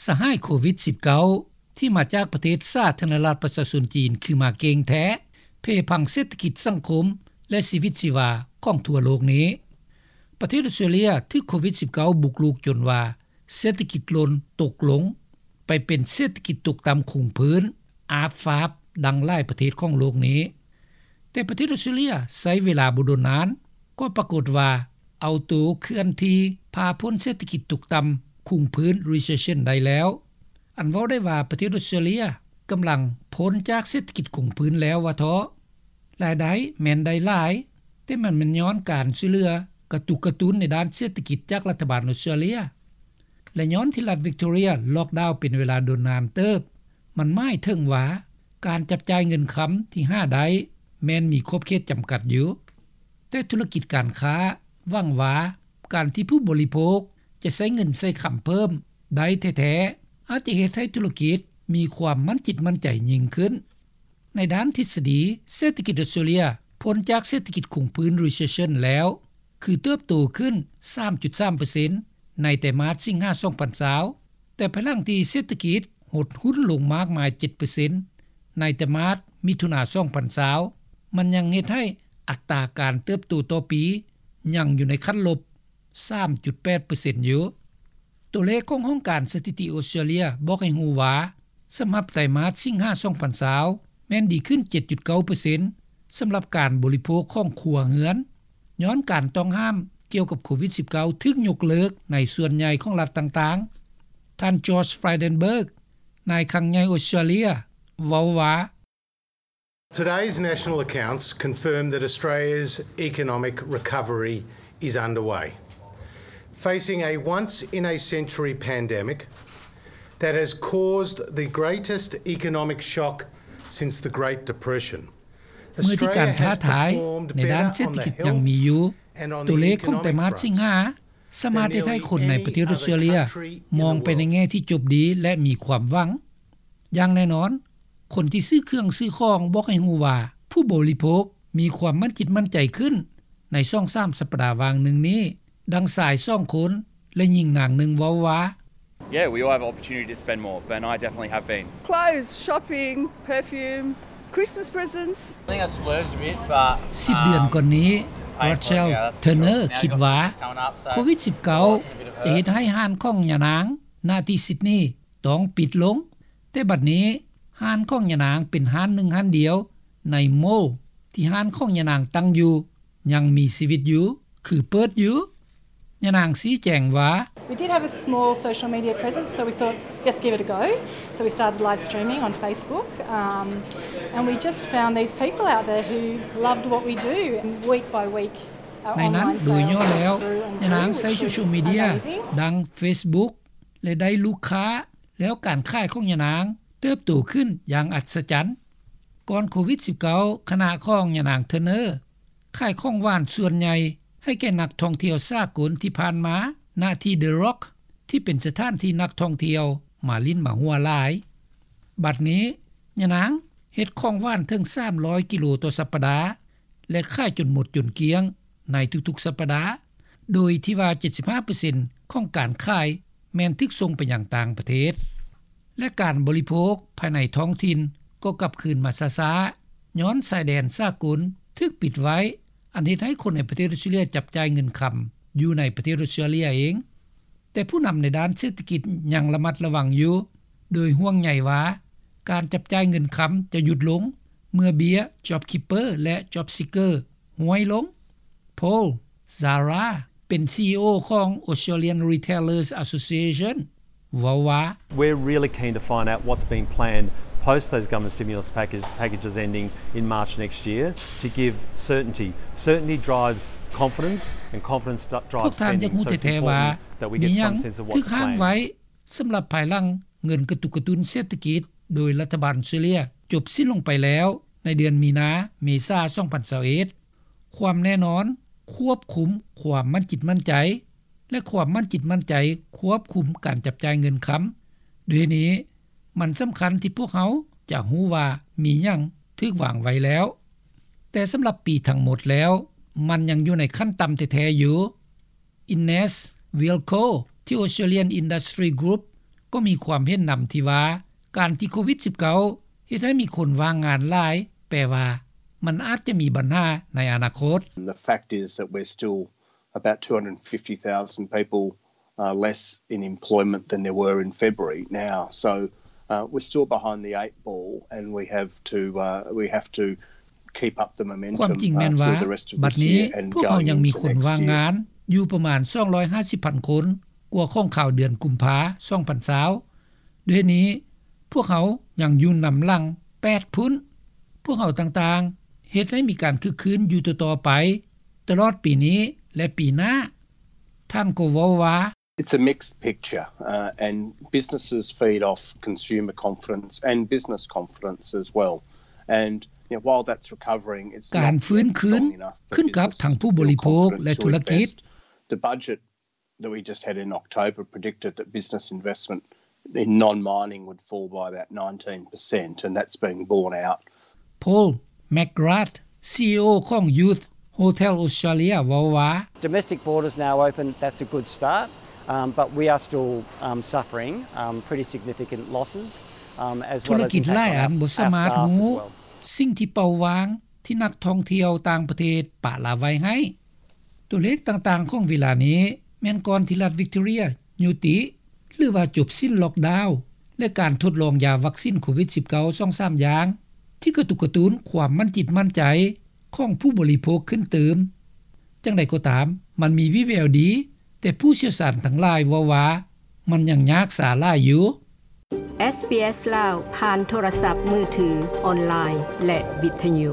ສະຫາຍໂຄວິດສິບເກົ້າ ທີ່ມາຈາກປະເທດສາທາລະນະລັດປະຊາຊົນຈີນ ຄືມາເກັ່ງແທ້ ເພພັງເສດຖະກິດ, ສັງຄົມ ແລະ ຊີວິດຊີວາຂອງທົ່ວໂລກນີ້. ປະເທດອອສເຕຣເລັຍຖືກໂຄວິດສິບເກົ້າບຸກລຸກຈົນວ່າ ເສດຖະກິດຫຼົ່ນຕົກລົງໄປເປັນເສດຖະກິດຕົກຕ່ຳຄົງພື້ນ ອາບຟາບ ດັ່ງຫຼາຍປະເທດຂອງໂລກນີ້. ແຕ່ປະເທດອອສເຕຣເລັຍໃຊ້ເວລາບໍ່ດົນນານ ກໍປາກົດວ່າເອົາໂຕເຄື່ອນທີ່ພາພົ້ນເສດຖະກິດຕົກຕ່ຳຄົງພື້ນ recession ໄດ້ແລ້ວ. ອັນເວົ້າໄດ້ວ່າປະເທດອອສເຕຣເລັຍກຳລັງພົ້ນຈາກເສດຖະກິດຄົງພື້ນແລ້ວວ່າເທາະ. ລາຍໄດ້ແມ່ນໄດ້ຫຼາຍ, ແຕ່ມັນແມ່ນຍ້ອນການຊ່ວຍເຫຼືອກະຕຸກກະຕຸ້ນໃນດ້ານເສດຖະກິດຈາກລັດຖະບານອອສເຕຣເລັຍ ແລະ ຍ້ອນທີ່ລັດວິກຕໍເຣັຍລັອກດາວເປັນເວລາດົນນານເຕີບ, ມັນໝາຍເຖິງວ່າການຈັບຈ່າຍເງິນຄຳທີ່ຫາໄດ້ແມ່ນມີຂອບເຂດຈຳກັດຢູ່. ແຕ່ທຸລະກິດການຄ້າຫວັງວ່າການທີ່ຜູ້ບໍລິໂພກຈະໃຊ້ເງິນໃຊ້ຄຳເພີ່ມໄດ້ແທ້ໆ ອາດຈະເຮັດໃຫ້ທຸລະກິດມີຄວາມໝັ້ນຈິດໝັ້ນໃຈຍິ່ງຂຶ້ນ. ໃນດ້ານທິດສະດີ, ເສດຖະກິດອອສເຕຣເລັຍພົ້ນຈາກເສດຖະກິດຄົງພື້ນ recession ແລ້ວ ຄືເຕີບໂຕຂຶ້ນ ສາມຈຸດສາມເປີເຊັນ ໃນໄຕມາດສິງຫາ ສອງພັນຊາວ ແຕ່ພາຍຫຼັງທີ່ເສດຖະກິດຫົດຫຸ້ນລົງມາກມາຍ ເຈັດເປີເຊັນ ໃນໄຕມາດມິຖຸນາ ສອງພັນຊາວ ມັນຍັງເຮັດໃຫ້ອັດຕາການເຕີບໂຕຕໍ່ປີຍັງຢູ່ໃນຂັ້ນລົບ ສາມຈຸດແປດເປີເຊັນ ຢູ່. ຕົວເລກຂອງຫ້ອງການສະຖິຕິອອສເຕຣເລັຍບອກໃຫ້ຮູ້ວ່າ ສຳລັບໄຕມາດສິງຫາ ສອງພັນຊາວ ແມ່ນດີຂຶ້ນ ເຈັດຈຸດເກົ້າເປີເຊັນ ສຳລັບການບໍລິໂພກຂອງຄົວເຮືອນ ຍ້ອນການຕ້ອງຫ້າມກ່ຽວກັບໂຄວິດສິບເກົ້າຖືກຍົກເລີກໃນສ່ວນໃຫຍ່ຂອງລັດຕ່າງໆ. ທ່ານ George Frydenberg ນາຍຄັງໃຫຍ່ອອສເຕຣເລັຍ ເວົ້າວ່າ Today's national accounts confirm that Australia's economic recovery is underway. Facing a once-in-a-century pandemic that has caused the greatest economic shock since the Great Depression, ເມື່ອທີ່ການທ້າທາຍໃນດ້ານເສດຖະກິດຍັງມີຢູ່, ຕົວເລກຂອງໄຕມາດສິງຫາສາມາດເຮັດໃຫ້ຄົນໃນປະເທດອອສເຕຣເລັຍມອງໄປໃນແງ່ທີ່ຈົບດີ ແລະ ມີຄວາມຫວັງ. ຢ່າງແນ່ນອນ, ຄົນທີ່ຊື້ເຄື່ອງຊື້ຂອງບອກໃຫ້ຮູ້ວ່າ ຜູ້ບໍລິໂພກມີຄວາມໝັ້ນຈິດໝັ້ນໃຈຂຶ້ນໃນສອງສາມສັບປະດາຫວ່າງໜຶ່ງນີ້, ດັ່ງຊາຍສອງຄົນ ແລະ ຍິງນາງໜຶ່ງເວົ້າວ່າ Yeah, we all have opportunity to spend more, but I definitely have been. Clothes, shopping, perfume, Christmas presents. I think I splurged a bit, but ສິບເດືອນກ່ອນນີ້ Rachel Turner ຄິດວ່າໂຄວິດສິບເກົ້າຈະເຮັດໃຫ້ຮ້ານຂອງຍານາງ ນະທີ່ຊິດນີ ຕ້ອງປິດລົງ, ແຕ່ບັດນີ້ຮ້ານຂອງຍານາງເປັນຮ້ານໜຶ່ງຮ້ານດຽວໃນໂມລທີ່ຮ້ານຂອງຍານາງຕັ້ງຢູ່ຍັງມີຊີວິດຢູ່ ຄືເປີດຢູ່. ຍານາງຊີ້ແຈງວ່າ We did have a small social media presence, so we thought, let's give it a go. So we started live streaming on Facebook, um, and we just found these people out there who loved what we do, and week by week, our ໃນນັ້ນ ໂດຍຫຍໍ້ແລ້ວ ຍານາງໃຊ້ໂຊຊຽວມີເດຍ ດັ່ງ Facebook ແລະ ໄດ້ລູກຄ້າ ແລ້ວການຂາຍຂອງຍານາງເຕີບໂຕຂຶ້ນຢ່າງອັດສະຈັນ. ກ່ອນໂຄວິດສິບເກົ້າ ຄະນະຂອງຍານາງ Turner ຂາຍຂອງຫວານສ່ວນໃຫຍ່ໃຫ້ແກ່ນັກທ່ອງທ່ຽວສາກົນທີ່ຜ່ານມາ ນະທີ່ The Rock ທີ່ເປັນສະຖານທີ່ນັກທ່ອງທ່ຽວມາຫຼິ້ນມາຫົວຫຼາຍ. ບັດນີ້ ຍານາງເຮັດຂອງຫວານເຖິງສາມຮ້ອຍກິໂລຕໍ່ສັບປະດາ ແລະ ຂາຍຈົນໝົດຈົນກ້ຽງໃນທຸກໆສັບປະດາ, ໂດຍທີ່ວ່າ ເຈັດສິບຫ້າເປີເຊັນຂອງການຂາຍແມ່ນຖືກສົ່ງໄປຍັງຕ່າງປະເທດ ແລະ ການບໍລິໂພກພາຍໃນທ້ອງຖິ່ນກໍກັບຄືນມາຊ້າໆ ຍ້ອນຊາຍແດນສາກົນຖືກປິດໄວ້, ອັນເຮັດໃຫ້ຄົນໃນປະເທດອອສເຕຣເລັຍຈັບຈ່າຍເງິນຄຳຢູ່ໃນປະເທດອອສເຕຣເລັຍເອງ. ແຕ່ຜູ້ນຳໃນດ້ານເສດຖະກິດຍັງລະມັດລະວັງຢູ່, ໂດຍຫ່ວງໃຍວ່າການຈັບຈ່າຍເງິນຄຳຈະຢຸດລົງ ເມື່ອເບ້ຍ JobKeeper ແລະ JobSeeker ຫ້ວຍລົງ. Paul Zahra ເປັນ CEO ຂອງ Australian Retailers Association ເວົ້າວ່າ We're really keen to find out what's been planned post those government stimulus package, packages ending in March next year to give certainty. Certainty drives confidence, and confidence drives spending, so it's important that we get some sense of what's planned. ສຳລັບພາຍຫຼັງເງິນກະຕຸກກະຕຸ້ນເສດຖະກິດໂດຍລັດຖະບານອອສເຕຣເລັຍຈົບສິ້ນລົງໄປແລ້ວໃນເດືອນມີນາ ເມສາ ສອງພັນຊາວເອັດ, ຄວາມແນ່ນອນຄວບຄຸມຄວາມໝັ້ນຈິດໝັ້ນໃຈ ແລະ ຄວາມໝັ້ນຈິດໝັ້ນໃຈຄວບຄຸມການຈັບຈ່າຍເງິນຄຳ. ດ້ວຍນີ້, ມັນສຳຄັນທີ່ພວກເຮົາຈະຮູ້ວ່າມີຫຍັງຖືກວາງໄວ້ແລ້ວ. ແຕ່ສຳລັບປີທັງໝົດແລ້ວ, ມັນຍັງຢູ່ໃນຂັ້ນຕ່ຳແທ້ໆຢູ່. Ines Wilko ທີ່ Australian Industry Group ກໍມີຄວາມເຫັນນຳທີ່ວ່າ ການທີ່ໂຄວິດສິບເກົ້າ ເຮັດໃຫ້ມີຄົນວ່າງງານຫຼາຍ ແປວ່າມັນອາດຈະມີບັນຫາໃນອະນາຄົດ. The fact is that we're still about two hundred fifty thousand people uh, less in employment than there were in February now. So uh, we're still behind the eight ball, and we have to uh, we have to keep up the momentum. ຄວາມຈິງແມ່ນວ່າ ບັດນີ້ພວກເຮົາຍັງມີຄົນວ່າງງານຢູ່ປະມານ ສອງຮ້ອຍຫ້າສິບພັນຄົນ ກວ່າຂອງຄາວເດືອນກຸມພາ ສອງພັນຊາວ. ດ້ວຍນີ້ພວກເຮົາຍັງຢູ່ນຳຫຼັງແປດພຸ້ນ. ພວກເຮົາຕ່າງໆເຮັດໃຫ້ມີການຄຶກຄື້ນຢູ່ຕໍ່ໆໄປ ຕະຫຼອດປີນີ້ ແລະ ປີໜ້າ. ທ່ານກໍເວົ້າວ່າ It's a mixed picture, uh, and businesses feed off consumer confidence and business confidence as well. And you know, while that's recovering, it's ການຟື້ນຄືນຂຶ້ນກັບທັງຜູ້ບໍລິໂພກ ແລະ ທຸລະກິດ. The budget that we just had in October predicted that business investment in non-mining would fall by about nineteen percent, and that's been borne out. Paul McGrath, CEO ຂອງ Youth Hotel Australia ເວົ້າວ່າ Domestic borders now open, that's a good start, um, but we are still um, suffering um, pretty significant losses, um, as ທຸລະກິດຫຼາຍອັນບໍ່ສາມາດຮູ້ສິ່ງທີ່ເປົ່າຫວ່າງທີ່ນັກທ່ອງທ່ຽວຕ່າງປະເທດປະລະໄວ້ໃຫ້. ຕົວເລກຕ່າງໆຂອງເວລານີ້ແມ່ນກ່ອນທີ່ລັດ Victoria ຍຸຕິ ຫຼືວ່າຈົບສິ້ນ lockdown ແລະ ການທົດລອງຢາວັກຊິນໂຄວິດສິບເກົ້າ ສອງສາມຢ່າງ ທີ່ກະຕຸກກະຕຸ້ນຄວາມໝັ້ນຈິດໝັ້ນໃຈຂອງຜູ້ບໍລິໂພກຂຶ້ນຕື່ມ. ຈັ່ງໃດກໍຕາມ ມັນມີວິແວວດີ, ແຕ່ຜູ້ຊ່ຽວຊານທັງຫຼາຍເວົ້າວ່າ ມັນຍັງຍາກຊ້າຫຼາຍຢູ່. ເອສບີເອສລາວ ຜ່ານໂທລະສັບມືຖື, ອອນລາຍ ແລະ ວິທະຍຸ.